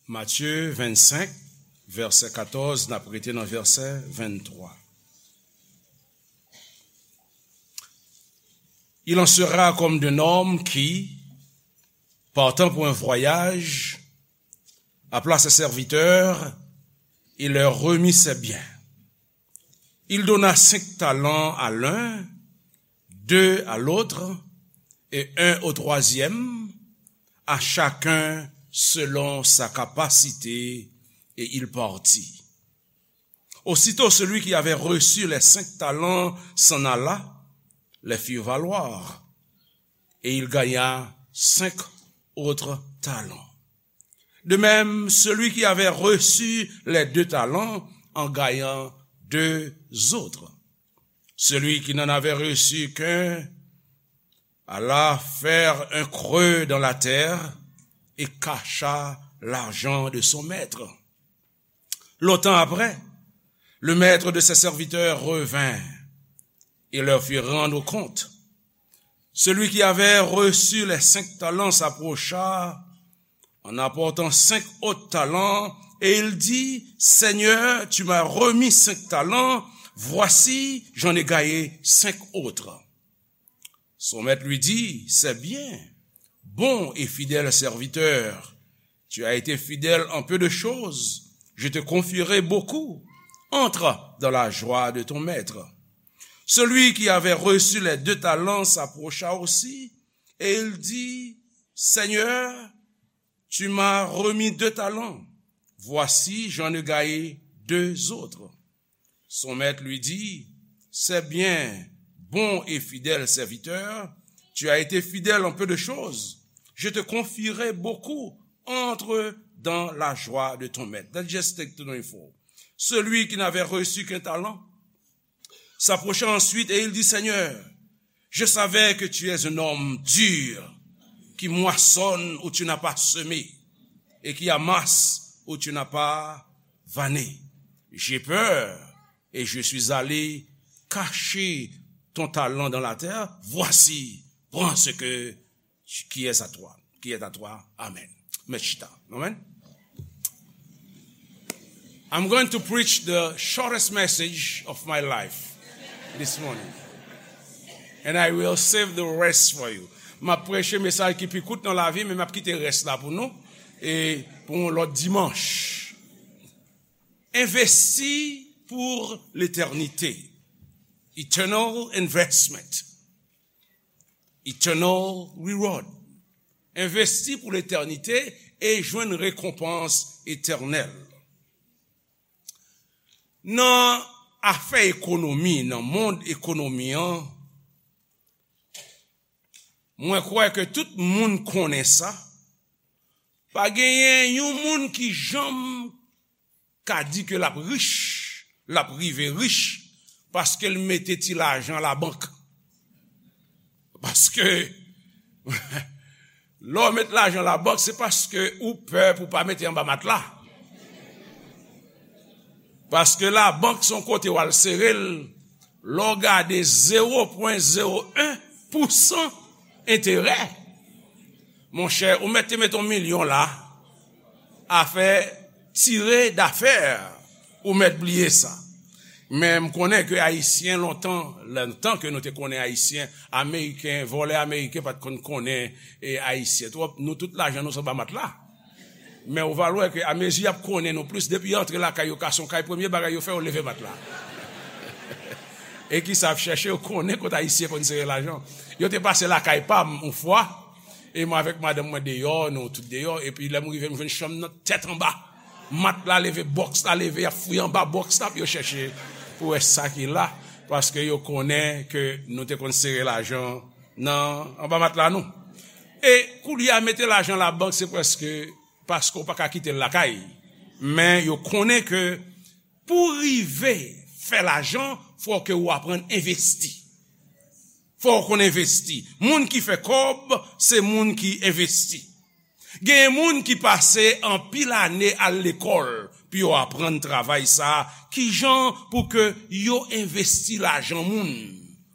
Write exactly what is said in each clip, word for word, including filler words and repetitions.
Matye vennsenk, vèsè katòz, n ap rete nan vèsè venntwa. Il en sera comme d'un homme qui, partant pour un voyage, appela ses serviteurs et leur remit ses biens. Il donna cinq talents à l'un, deux à l'autre, et un au troisième, à chacun selon sa capacité, et il partit. Aussitôt celui qui avait reçu les cinq talents s'en alla, les fit valoir, et il gagna cinq autres talents. De même, celui qui avait reçu les deux talents en gagna deux autres. Celui qui n'en avait reçu qu'un alla faire un creux dans la terre et cacha l'argent de son maître. Longtemps après, le maître de ses serviteurs revint et leur fit rendre compte. Celui qui avait reçu les cinq talents s'approcha en apportant cinq autres talents, et il dit, Seigneur, tu m'as remis cinq talents, voici, j'en ai gagné cinq autres. Son maître lui dit, c'est bien, bon et fidèle serviteur, tu as été fidèle en peu de choses, je te confierai beaucoup, entre dans la joie de ton maître. Celui qui avait reçu les deux talents s'approcha aussi, et il dit, Seigneur, tu m'as remis deux talents. Voici, j'en ai gagné deux autres. Son maître lui dit, c'est bien, bon et fidèle serviteur, tu as été fidèle en peu de choses, je te confierai beaucoup, entre dans la joie de ton maître. That's just take to know info. Celui qui n'avait reçu qu'un talent s'approcha ensuite et il dit, Seigneur, je savais que tu es un homme dur, qui moissonne où tu n'as pas semé, et qui amasse où tu n'as pas vanné. J'ai peur et je suis allé cacher ton talent dans la terre. Voici, prends ce que, qui est à toi, qui est à toi. Amen. Mèt chita. Amen. I'm going to preach the shortest message of my life this morning. And I will save the rest for you. M ap preche mesaj ki pi kout nan lavi, men m ap kite rès la pou nou, e pou yon lòt dimanch. Envesti pou letènite. Eternal investment. Eternal reward. Envesti pou letènite e jwenn rekonpans etènèl. Nan afè ekonomi, nan mond ekonomi an, mwen kwè ke tout moun konnen sa. Pa genyen yon moun ki janm ka di ke l ap rich, l ap rive rich, paske l mete ti lajan labank. Paske lè w met lajan labank, se paske ou pè pou w pa mete anba matla. Paske labank se yon kote w al sere l, lè w gade zewo pwen zewo en pousan enterè. Monchè, ou mèt te met yon milyon la, afè tire dafè, ou mèt bliye sa. Men m konnen ke Ayisyen lontan, lontan ke nou te konnen Ayisyen, Ameriken, vòlè ameriken pa t konn konnen, e, Ayisyen twòp. Nou tout lajan nou se anba matla. Men ou va wè ke amezi y ap konnen nou plis, depi y antre lakay yo, ka se yon kay, premye bagay yo fè, yo leve matla. E kisa y ap chèche, yo konnen kot Ayisyen konn sere lajan. Yo te pase lakay pa m yon fwa, e mwen avèk madanm mwen deyò, nou tout deyò, epi lè m rive, m jwenn chanm nan tèt anba. Matla leve, bòks la leve, y ap fouye anba bòks la pou yo chèche pou wè sa ki la, paske yo konnen ke nou te konn sere lajan nan, anba matla nou. E koulye a, mete lajan labank, se prèske paske w pa ka kite l lakay. Men yo konnen ke pou w rive fè lajan, fò ke w aprann envesti. Fò w konn envesti. Moun ki fè kòb, se moun ki envesti. Genyen moun ki pase anpil ane al lekòl pou yo aprann travay sa a, kijan pou ke yo envesti lajan moun,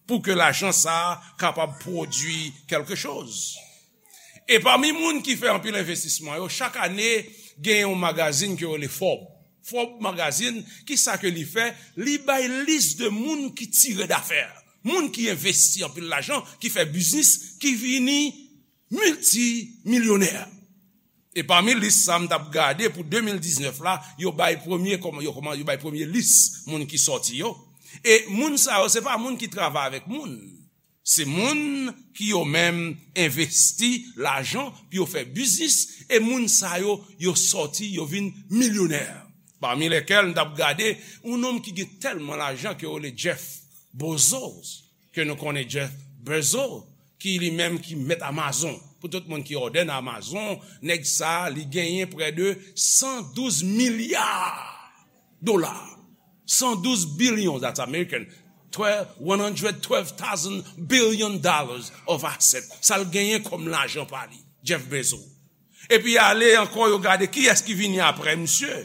pou ke lajan sa a kapab pwodui kèlke choz. E pami moun ki fè anpil envestisman yo, chak ane, Gen yon magazin ke yo rele Forbes. Forbes magazin, ki sa ke li fè? Li bay lis de moun ki tire dafè. Moun ki envesti anpil lajan, ki fè biznis, ki vini miltimilyonè. E pami lis sa m t ap gade pou de mil diznèf la, yo bay premye, kòman, yo, kòman, yo bay premye lis moun ki sòti yo. E moun sa yo, se pa moun ki travay avèk moun. Se moun ki yo menm envesti lajan pou yo fè biznis, e moun sa yo, yo sòti, yo vin milyonè. Pami lèkèl m t ap gade, yon nonm ki gen tèlman lajan ke yo rele Jeff Bezos, ke nou konnen Jeff Bezos, ki li menm ki mèt Amazon. Pou tout moun ki òdè nan Amazon, nèg sa, li genyen prè de san douz milya dola. San douz bilyon, that's American. Twelve, one hundred twelve thousand billion dollars of asset. Sa l genyen kòm lajan pa li, Jeff Bezos. Epi ale ankò, yo gade kiyès ki vini apre misye.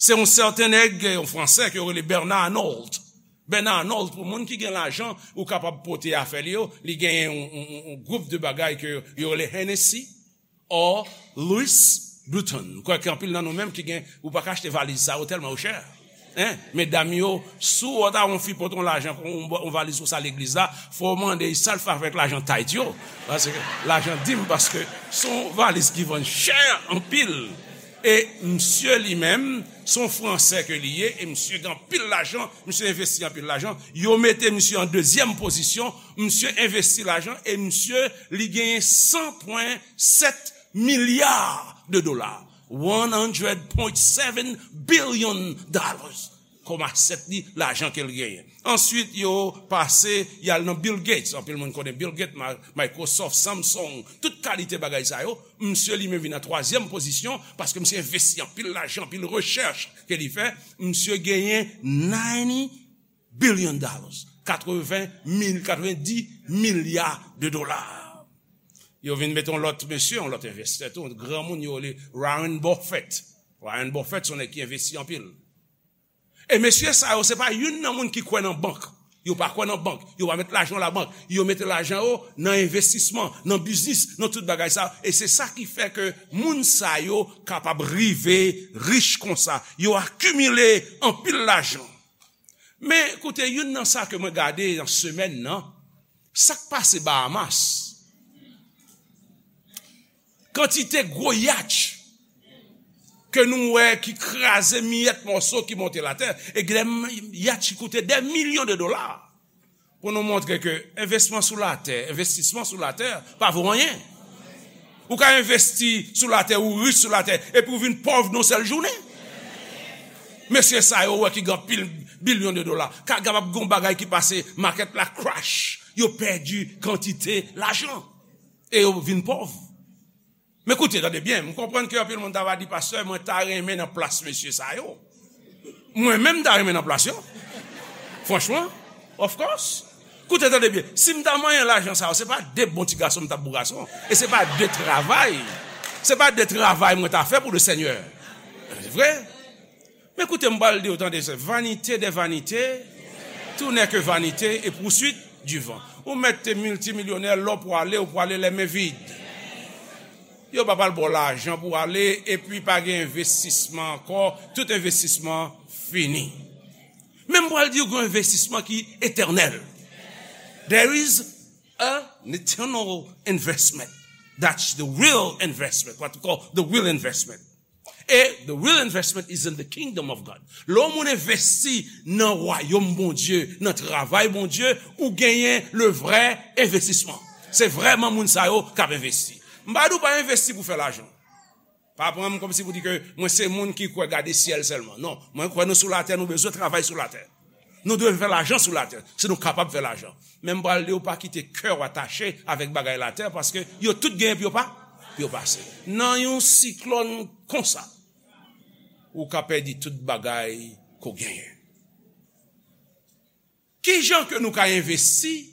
Se yon sèten nèg, yon Fransè, ke yo rele Bernard Arnault. Bernard Arnault, pou moun ki gen lajan, ou kapab pote afè li yo, li genyen yon, yon, yon, yon gwoup de bagay ke yo rele Hennessy or Louis Vuitton. M kwè ke anpil nan nou menm ki gen, ou pa ka achte valiz sa yo tèlman yo chè. Hein? Medam yo, si w ta wè yon fi pote yon lajan, yon, yon valiz konsa legliz la, fò w mande sa l fè avèk lajan tithe yo. Paske lajan dim, paske se yon valiz ki vann chè anpil. E misye li menm, se yon Fransè ke li ye, e misye gen anpil lajan, misye envesti anpil lajan. Yo mete misye an dezyèm pozisyon, misye envesti lajan, e misye, li genyen san pwen sèt milya de dola. One hundred point seven billion dollars. Kòm asèt li, lajan ke l genyen. Answit, yo pase, y al nan Bill Gates. Anpil moun konnen Bill Gates, Ma-, Microsoft, Samsung, tout kalite bagay sa yo. Misye li menm vin nan twazyèm pozisyon, paske misye envesti anpil lajan, anpil rechèch ke li fè. Misye genyen ninety billion dollars. Katreven mil, katrevendis milya de dola. Yo vin mete yon lòt mesye, yon lòt envestè tou, yon granmoun yo rele Warren Buffett. Warren Buffett, se yon nèg ki envesti anpil. E mesye sa yo, se pa youn nan moun ki kwè nan bank. Yo pa kwè nan bank. Yo pa met lajan labank. Yo mete lajan yo nan envestisman, nan biznis, nan tout bagay sa. E se sa ki fè ke moun sa yo kapab rive rich konsa. Yo akimile anpil lajan. Men, koute, youn nan sa ke mwen gade nan semèn nan, sa k pase Bahamas. Kantite gwo yatch ke nou wè ki kraze miyèt mòso ki monte latè, e gen yatch ki koute dè milyon de dola. Pou nou montre ke envestisman sou latè, envestisman sou latè pa vo anyen. Ou ka envesti sou latè, ou rich sou latè, epi ou vin pòv nan yon sèl jounen. Mesye sa yo wè ki gen anpil bilyon de dola. Ka kapab gen yon bagay ki pase, makèt la crash. Yo pèdi kantite lajan. E yo vin pòv. Men koute, tande byen, m konprann ke anpil moun ta va di, "Pastè, mwen ta renmen nan plas mesye sa yo." Mwen menm, m ta renmen nan plas yo. Franchman, of course. Koute, tande byen, si m ta manyen lajan sa yo, se pa de bon ti gason m t ap bon gason. E se pa de travay. Se pa de travay mwen ta fè pou le Senyè. Se vre? Men koute, m pral di w, tande, se vanité des vanités, tout n'est que vanité et poursuite du vent. Ou mèt te miltimilyonè, lè w pwale, ou pwale les mains vides. Yo pa pral ba w lajan pou w ale, epi pa gen envestisman ankò, tout envestisman fini. Men m pral di w gen yon envestisman ki etènèl. There is an eternal investment. That's the real investment, what we call the real investment. E the real investment is in the kingdom of God. Lè yon moun envesti nan wayòm Bondye, nan travay Bondye, ou genyen le vrè envestisman. Se vrèman moun sa yo k ap envesti. M pa di w pa envesti pou fè lajan. Pa pran m kòmsi pou di ke mwen se moun ki kwè gade syèl sèlman. Non, mwen kwè nou sou latè, nou bezwen travay sou latè. Nou dwe fè lajan sou latè, si nou kapab fè lajan. Men m pral di w, pa kite kè w atache avèk bagay latè, paske yo tout genyen pou yo pa, pou yo pase. Nan yon siklòn konsa, ou ka pèdi tout bagay ke w genyen. Ki jan ke nou ka envesti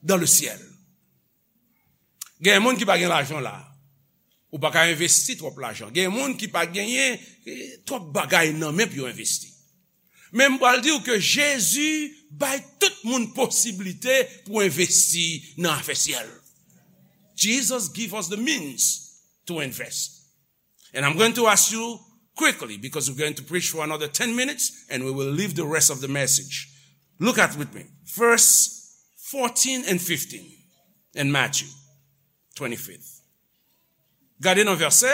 dans le ciel? Gen moun ki pa gen lajan la. Ou pa ka envesti twòp lajan. Gen moun ki pa genyen, eh, twòp bagay nan men pou yo envesti. Men m pral di w ke Jezi bay tout moun posiblite pou envesti nan afè syèl. Jesus give us the means to invest. And I'm going to ask you quickly, because we're going to preach for another ten minutes and we will leave the rest of the message. Look at with me. Verse fourteen and fifteen in Matthew twenty-fifth. Gade nan vèsè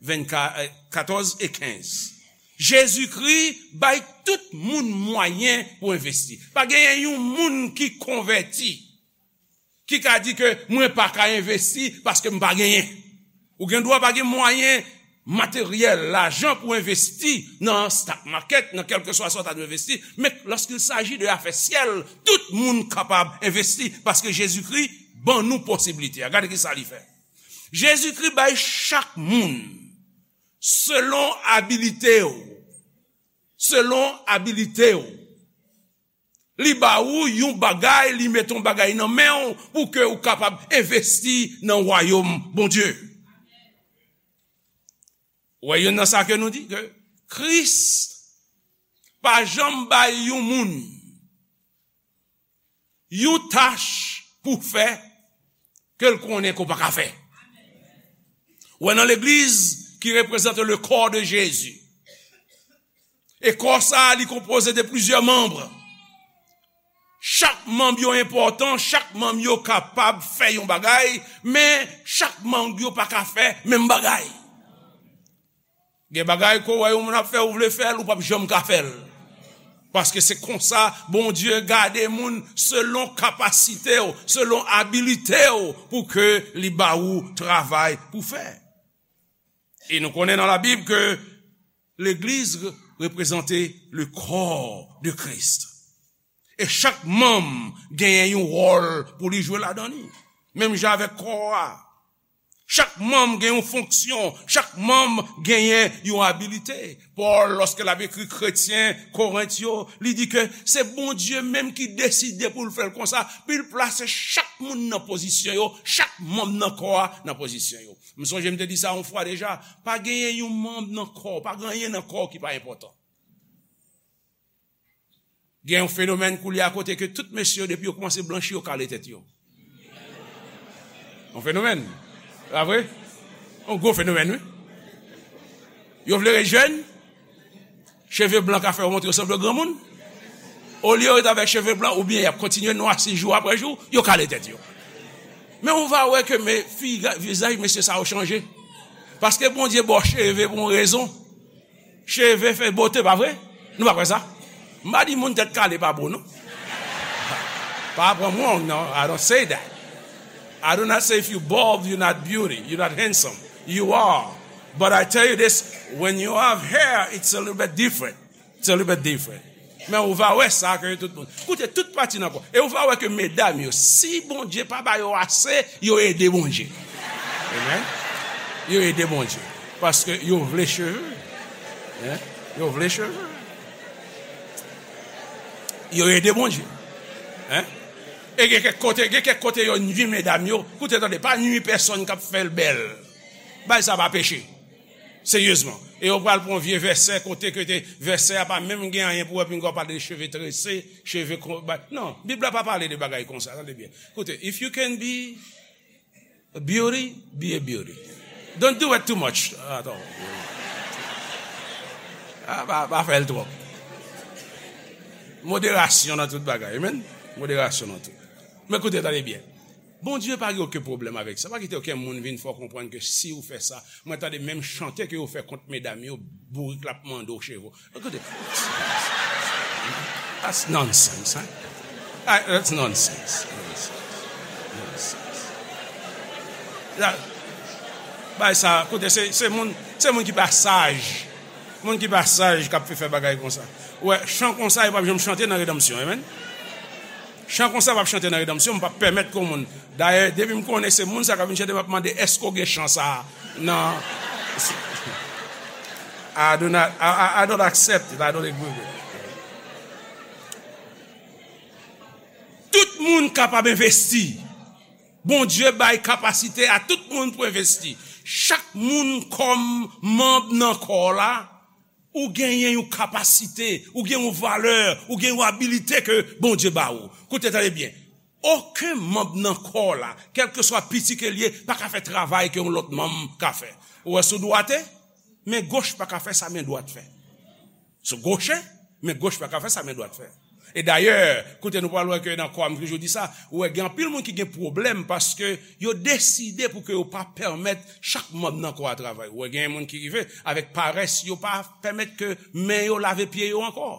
vennkat, eh, katòz e kenz. Jezikri bay tout moun mwayen pou envesti. Pa genyen yon moun ki konvèti ki ka di ke mwen pa ka envesti paske m pa genyen. Ou gen dwa pa gen mwayen materyèl, lajan pou envesti nan stock market, nan kèlkeswa sa w ta dwe envesti, men lorsqu'il s'agit de afè syèl, tout moun kapab envesti paske Jezikri ban nou posiblite a. Gade ki sa li fè. Jezikri bay chak moun selon abilite w. Selon abilite w. Li ba ou yon bagay, li mete yon bagay nan men w pou ke ou kapab envesti nan wayòm Bondye. Ou wè youn nan sa ke nou di, ke Kris pa janm bay yon moun yon tach pou fè ke l konnen ke w pa ka fè. Ou wè nan legliz ki reprezante le corps de Jésus. E kò sa a, li konpoze de plizyè manm. Chak manm yo enpòtan, chak manm yo kapab fè yon bagay, men chak manm yo pa ka fè menm bagay. Gen bagay ke w wè yon moun ap fè, ou vle fè l, ou p ap janm ka fè l. Paske se konsa Bondye gade moun, selon kapasite w, selon abilite w, pou ke li ba ou travay pou fè. E nou konnen nan Labib ke legliz reprezante le corps de Christ. E chak manm genyen yon wòl pou li jwe ladan li. Menm jan avèk kò a. Chak manm gen yon fonksyon, chak manm genyen yon abilite. Pòl, lòske l ap ekri kretyen Korent yo, li di ke se Bondye menm ki deside pou l fè l konsa, pou l plase chak moun nan pozisyon yo, chak manm nan kò a nan pozisyon yo. M sonje m te di sa yon fwa deja, pa genyen yon manm nan kò, pa gen anyen nan kò ki pa enpòtan. Gen yon fenomèn koulye a kote ke tout mesye yo, depi yo kòmanse blanchi, yo kale tèt yo. Yon fenomèn. Pa vre? Yon gwo fenomèn, wi. Yo vle ret jèn, cheve blan ka fè yo montre yo sanble granmoun. Olye yo ret avèk cheve blan, oubyen y ap kontinye nwa sis jou apre jou, yo kale tèt yo. Men ou va wè ke men, figa-, vizaj mesye sa yo chanje. Paske Bondye ba w cheve pou yon rezon. Cheve fè bote, pa vre? Nou pa kwè sa? M pa di moun tèt kale pa bo, non. Pa pran m wrong, non. I don't say that. I do not say if you bald, you're not beauty, you're not handsome. You are. But I tell you this, when you have hair, it's a little bit different. It's a little bit different. Men ou va wè sa ke tout moun. Koute, tout pati nan kò. E ou va wè ke medam yo, si Bondye pa ba yo ase, yo ede Bondye. Amen. Yo ede Bondye. Paske yo vle cheve. Hein? Yo vle cheve. Yo ede Bondye. Hein? E gen kèk kote, gen kèk kote yo nwi medam yo. Koute, tande, pa nwi pèsonn k ap fè l bèl. Bagay sa pa peche. Seryezman. E yo pral pran vye vèsè kote ke te, vèsè a pa menm gen anyen pou wè, pinga w pale de cheve trese, cheve kon, ba, non, Bib la pa pale de bagay konsa, tande byen. Koute, if you can be a beauty, be a beauty. Don't do it too much at all. Ah, pa, pa fè l twòp. Moderasyon nan tout bagay, amen. Moderasyon nan tout. Men koute, tande byen. Bondye pa gen okenn pwoblèm avèk sa. Pa kite okenn moun vin fè w konprann ke si w fè sa, mwen tande menm chante ke yo fè kont medam yo, bourik la ap mande w cheve w. Koute. That's nonsense, hein? Ah, that's nonsense. Nonsense. Nonsense. La, bay sa, koute, se, se moun, se moun ki pa saj. Moun ki pa saj k ap fè bagay konsa. Ou wè, chan konsa, yo p ap janm chante nan redanmsyon, amen. Chan konsa p ap chante nan redanmsyon, m p ap pèmèt ke yon moun. Dayè, depi m konnen se moun sa k ap vin chante, m ap mande, èske w gen chan sa a nan, I do not, I, I, I don't accept it, I don't agree with it. Tout moun kapab envesti. Bondye bay kapasite a tout moun pou envesti. Chak moun kòm manm nan kò la, ou genyen yon kapasite, ou gen yon valè, ou gen yon abilite ke Bondye ba ou. Koute, tande byen. Okenn manm nan kò la, kèlkeswa piti ke l ye, pa ka fè travay ke yon lòt manm ka fè. Ou wè sou dwate? men goch pa ka fè sa men dwat fè. Sou goche, men goch pa ka fè sa men dwat fè. E dayè, kote nou pral wè ke nan kò a, m toujou di sa, ou wè gen anpil moun ki gen pwoblèm paske yo deside pou ke yo pa pèmèt chak manm nan kò a travay. Ou wè gen moun ki rive avèk parès, yo pa pèmèt ke men yo lave pye yo ankò.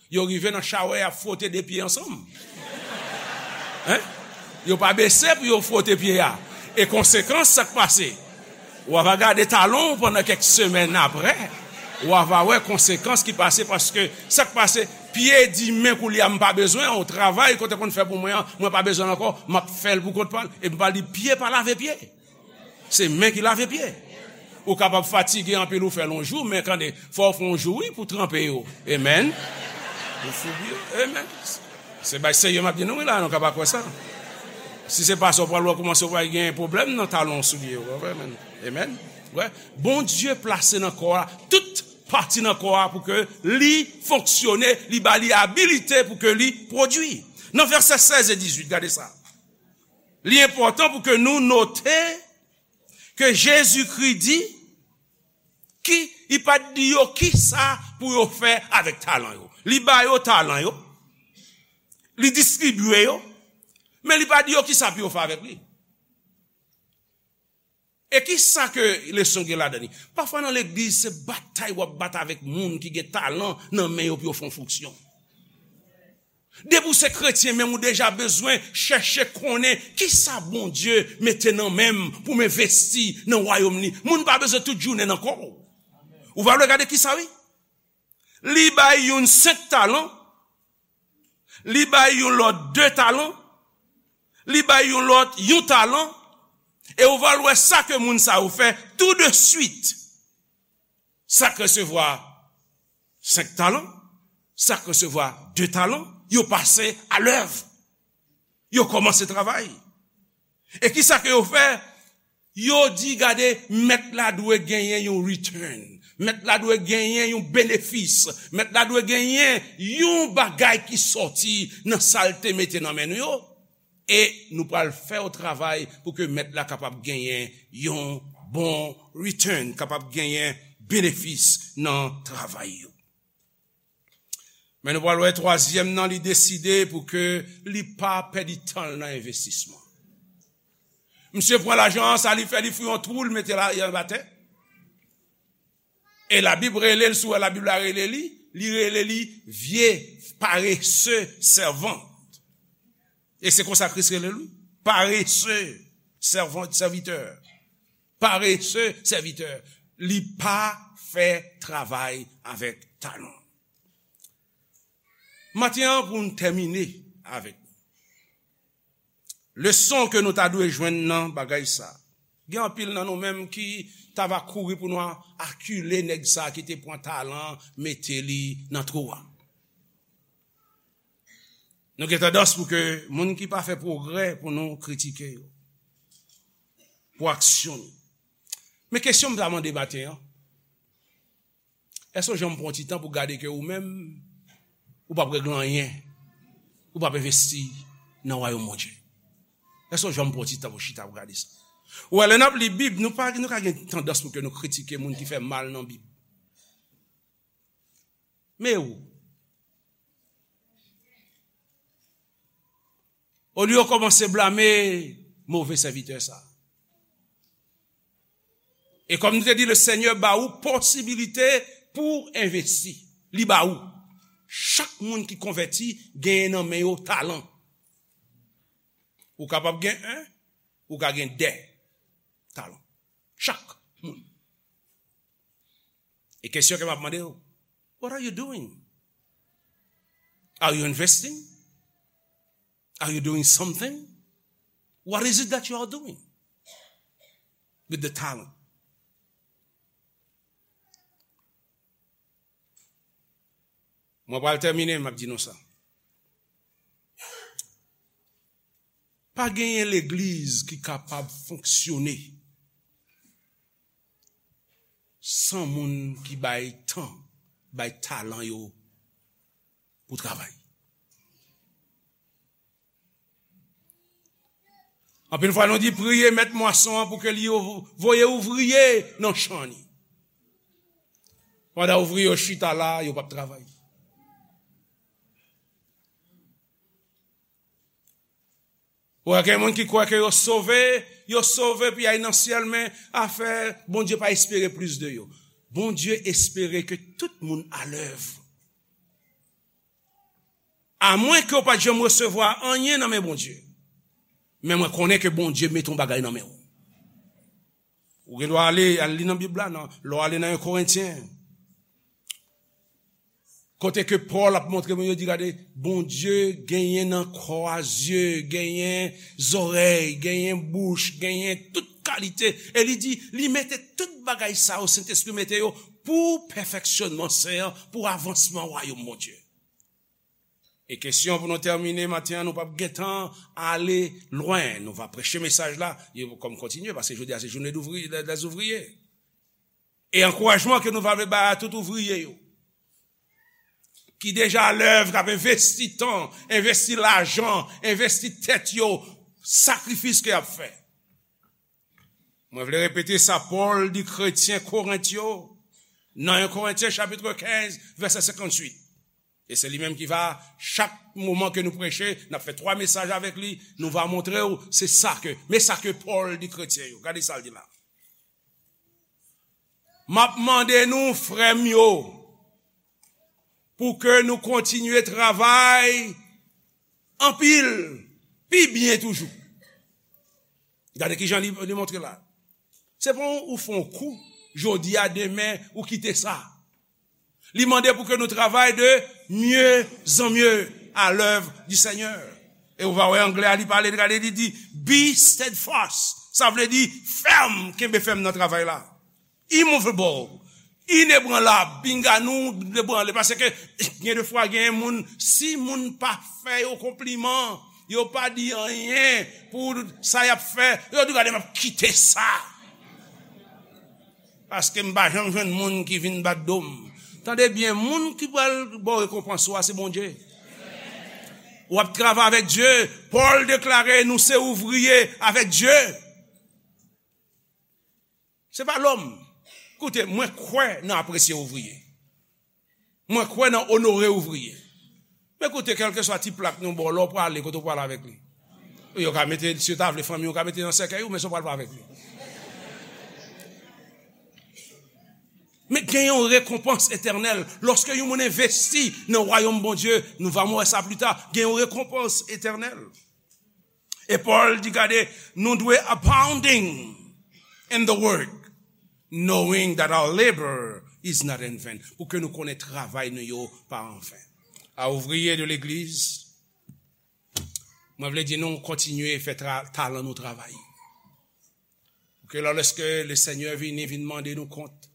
Yo rive nan chawè, y ap fwote de pye ansanm. Hein? Yo pa bese pou yo fwote pye a. E konsekans, sa k pase? W a va gade talon w pandan kèk semèn apre. W a va wè konsekans ki pase paske sa k pase, pye di men koulye a m pa bezwen w. Travay ke w te konn fè pou mwen an, mwen pa bezwen l ankò. M ap fè l pou kont pa l. E m pa di pye pa lave pye. Se men ki lave pye. Ou kapab fatige anpil, ou fè l yon jou, men tande, fò w fè yon jou, wi, pou tranpe yo. Amen. Pou foubi yo. Amen. Se bay serye m ap di nou, wi, la, nou ka pa kwè sa. Si se pa sa, w pral wè kòman w pral gen pwoblèm nan talon soulye yo. Amen. Amen. Wè, Bondye plase nan kò a, tout pati nan kò a pou ke li fonksyone, li ba li abilite pou ke li pwodui. Nan vèsè sèz e dizuit, gade sa. Li enpòtan pou ke nou note ke Jezikri di ki, li pa t di yo ki sa pou yo fè avèk talan yo. Li ba yo talan yo, li distribye yo, men li pa di yo ki sa pou yo fè avèk li. E ki sa ke leson gen ladan li? Pafwa nan legliz, se batay w ap bat avèk moun ki gen talan nan men yo pou yo fè yon fonksyon. Depi w se kretyen, menm ou deja bezwen chèche konnen ki sa Bondye mete nan men m pou m envesti nan wayòm li. Moun pa bezwen tout jounen nan kò w. Ou va gade ki sa, wi. Li bay youn senk talan, li bay yon lòt de talan, li bay yon lòt yon talan, e ou va wè sa ke moun sa yo fè tou de swit. Sa k resevwa senk talan, sa k resevwa de talan, yo pase a lèv. Yo kòmanse travay. E ki sa ke yo fè? Yo di, gade, mèt la dwe genyen yon return. Mèt la dwe genyen yon benefis. Mèt la dwe genyen yon bagay ki sòti nan sa l te mete nan men nou yo. E nou pral fè yon travay pou ke mèt la kapab genyen yon bon return, kapab genyen benefis nan travay yo. Men nou pral wè twazyèm nan, li deside pou ke li pa pèdi tan l nan envestisman. Misye pran lajan an, sa li fè, li fouye yon twou, li mete l anba tè. E Labib rele l, si w wè Labib la rele li, li rele li vye parese sèvant. E se konsa Kris rele l, wi. Parese sèvant, sèvitè. Parese sèvitè. Li pa fè travay avèk talan. Maten an, pou n tèmine avèk leson ke nou ta dwe jwenn nan bagay sa. Gen anpil nan nou menm ki ta va kouri pou nou akile nèg sa ki te pran talan, mete li nan twou a. Nou gen tandans pou ke moun ki pa fè pwogrè pou nou kritike yo. Pou aksyon nou. Men kesyon m ta mande maten an, èske w janm pran ti tan pou gade ke ou menm, ou p ap regle anyen, ou p ap envesti nan wayòm Bondye? Èske w janm pran ti tan pou chita pou gade sa? Ou wè, lè n ap li Bib, nou pa, nou ka gen tandans pou ke nou kritike moun ki fè mal nan Bib. Men ou, olye w kòmanse blame move sèvitè sa. E kòm nou te di, le Senyè ba ou posibilite pou envesti. Li ba ou. Chak moun ki konvèti genyen nan men yo talan. Ou kapab gen en, ou ka gen de talan. Chak moun. E kesyon ke m ap mande w, what are you doing? Are you investing? Are you doing something? What is it that you are doing with the talent? Mwen pral tèmine, m ap di nou sa. Pa genyen legliz ki kapab fonksyone san moun ki bay tan, bay talan yo pou travay. Anpil fwa nou di, priye mèt mwason an pou ke li voye ouvriye nan chan li. Pandan ouvriye yo chita la, yo p ap travay. Ou wè gen moun ki kwè ke yo sove, yo sove pou y al nan syèl, men afè, Bondye pa espere plis de yo. Bondye espere ke tout moun alèv. Amwen ke w pa t janm resevwa anyen nan men Bondye. Men mwen konnen ke Bondye mete yon bagay nan men w. Ou gen dwa ale, al li nan Bib la, nan, lè w ale nan yon Korentyen. Kote ke Pòl ap montre moun yo, di, gade, Bondye genyen nan kò a zye, genyen zòrèy, genyen bouch, genyen tout kalite. E li di, li mete tout bagay sa yo, Sentespri mete yo pou pèfeksyonman sen an, pou avansman wayòm Bondye. E kesyon pou nou tèmine maten an, nou p ap gentan ale lwen. Nou va preche mesaj la, e kòm kontinye, paske jodi a se jounen douvri-, dè, dè zouvriye. E ankourajman ke nou va vle bay a tout ouvriye yo, ki deja alèv, k ap envesti tan, envesti lajan, envesti tèt yo, sakrifis ke y ap fè. Mwen vle repete sa Pòl di kretyen Korent yo, nan en Korentyen chapit kenz, vèsè senkantuit. E se li menm ki va, chak moman ke nou preche, n ap fè twa mesaj avèk li, nou va montre w, se sa ke, men sa ke Pòl di kretyen yo. Gade sa l di la. M ap mande nou, frè m yo, pou ke nou kontinye travay anpil, pi byen toujou. Gade kijan li, li montre la. Se pa ou fè yon kou, jodi a, demen, ou kite sa. Li mande pou ke nou travay de mieux en mieux à l'œuvre du Seigneur. E ou va wè anglè a, li pale, gade, li di, be steadfast. Sa vle di fèm, kenbe fèm nan travay la. Immovable, inebranlab, pinga nou debranle. Paske gen de fwa, gen moun, si moun pa fè yo konpliman, yo pa di anyen pou sa y ap fè, yo di, gade, m ap kite sa. Paske m pa janm jwenn moun ki vin bat do m. Tande byen, moun ki pral ba w rekonpans ou a, se Bondye. W ap travay avèk Dye. Pòl deklare, nou se ouvriye avèk Dye. Se pa lòm. Koute, mwen kwè nan apresye ouvriye. Mwen kwè nan onore ouvriye. Men koute, kèlkeswa ti plak nou ba w, lè w prale, kote w prale avèk li? Yo ka mete, si yo ta vle fanmi, yo ka mete nan sèkèy ou, men sa w pral fè avèk li. Men gen yon rekonpans etènèl. Lòske yon moun envesti nan wayòm Bondye, nou va wè sa pli ta, gen yon rekonpans etènèl. E Pòl di, gade, nou dwe abounding in the work, knowing that our labor is not in vain. Pou ke nou konnen travay nou yo pa anven. A ouvriye de legliz, mwen vle di nou kontinye fè tra-, talan nou travay. Pou ke lè, lèske le Senyè vini, vin mande nou kont,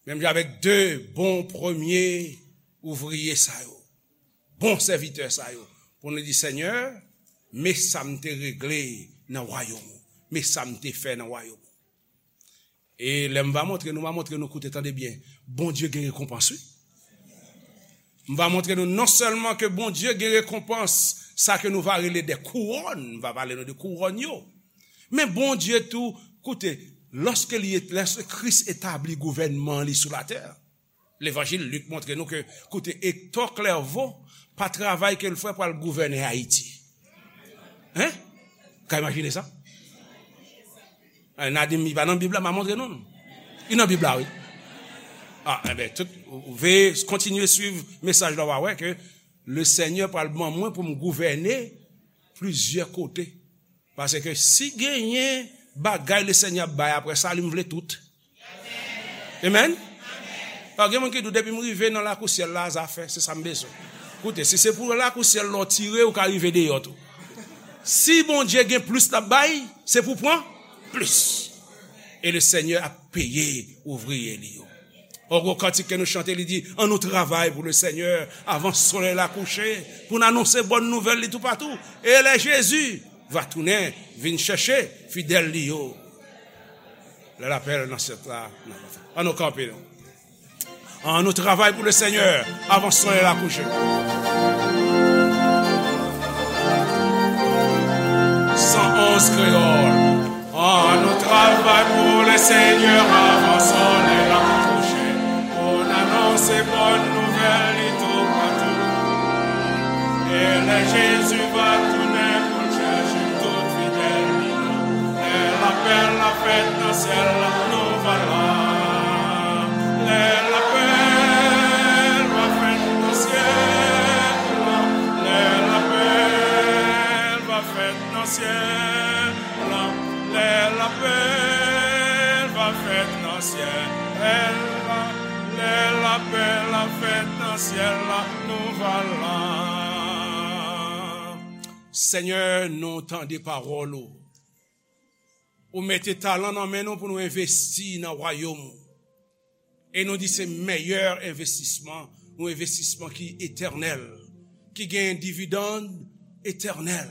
menm jan avèk de bon premye ouvriye sa yo, bon sèvitè sa yo, pou nou di, Senyè, men sa m te regle nan wayòm ou, men sa m te fè nan wayòm ou. E lè m va montre nou, m va montre nou, koute, tande byen, Bondye gen rekonpans, wi. M va montre nou non sèlman ke Bondye gen rekonpans, sa ke nou va rele de kouwòn, m va pale nou de kouwòn yo. Men Bondye tou, koute, lòske li, lòske Kris etabli gouvènman li sou latè, levanjil Lik montre nou ke, koute, Hector Clerveau pa travay ke l fè pou al gouvène Ayiti. Hein? Ka imajine sa? Eh, n a di m, li pa nan Bib la, m a montre nou. Li nan Bib la, wi. Ah, enben, tout, ou, ou veye kontinye swiv mesaj la, w a wè ke le Senyè pral ban mwen pou m gouvène plizyè kote. Paske si genyen bagay le Senyè ap bay apre sa, li m vle tout. Amen? Ah, gen moun ki di, depi m rive nan lakou syèl la, zafè, se sa m bezwen. Koute, si se pou lakou syèl la w tire, ou ka rive deyò tou. Si Bondye gen plis l ap bay, se pou pran plis. E le Senyè ap peye ouvriye li yo. Yon gwo kantik ke nou chante, li di, an nou travay pou le Senyè avan solèy la kouche, pou n anonse bòn nouvèl li toupatou. E lè Jezi va tounen, vin chèche fidèl li yo. Lè lapèl nan syèl la, an nou kanpe, non. An nou travay pou le Senyè avan solèy la kouche. San onz kreyòl. An nou travay pou le Senyè avan solèy la kouche. Jezi va tounen pou l chèche tout fidèl li yo. Lè lapèl la fèt nan syèl la, nou va la. Lè lapèl va fèt nan syèl la, lè lapèl va fèt nan syèl la, lè lapèl va fèt nan syèl la, lè lapèl la fèt nan syèl la, nou va la. Senyè, nou tande pawòl ou. Ou mete talan nan men nou pou nou envesti nan wayòm ou. E nou di se meyè envestisman, yon envestisman ki etènèl, ki gen dividann etènèl,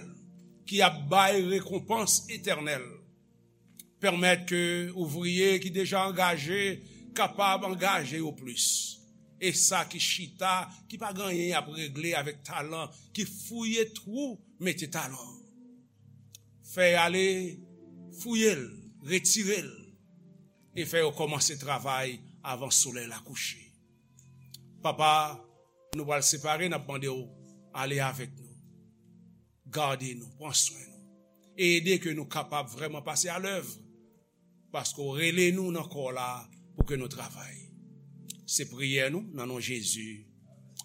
ki ap bay rekonpans etènèl. Pèmèt ke ouvriye ki deja angaje kapab angaje yo plis. E sa ki chita, ki pa gen anyen y ap regle avèk talan, ki fouye twou, mete talan. Fè y ale fouye l, retire l, e fè yo kòmanse travay avan solèy la kouche. Papa, nou pral separe, n ap mande w ale avèk nou. Gade nou, pran swen nou. E ede ke nou kapab vrèman pase alèv, paske w rele nou nan kò w la pou ke nou travay. Se priyè nou nan non Jezi.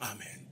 Amèn.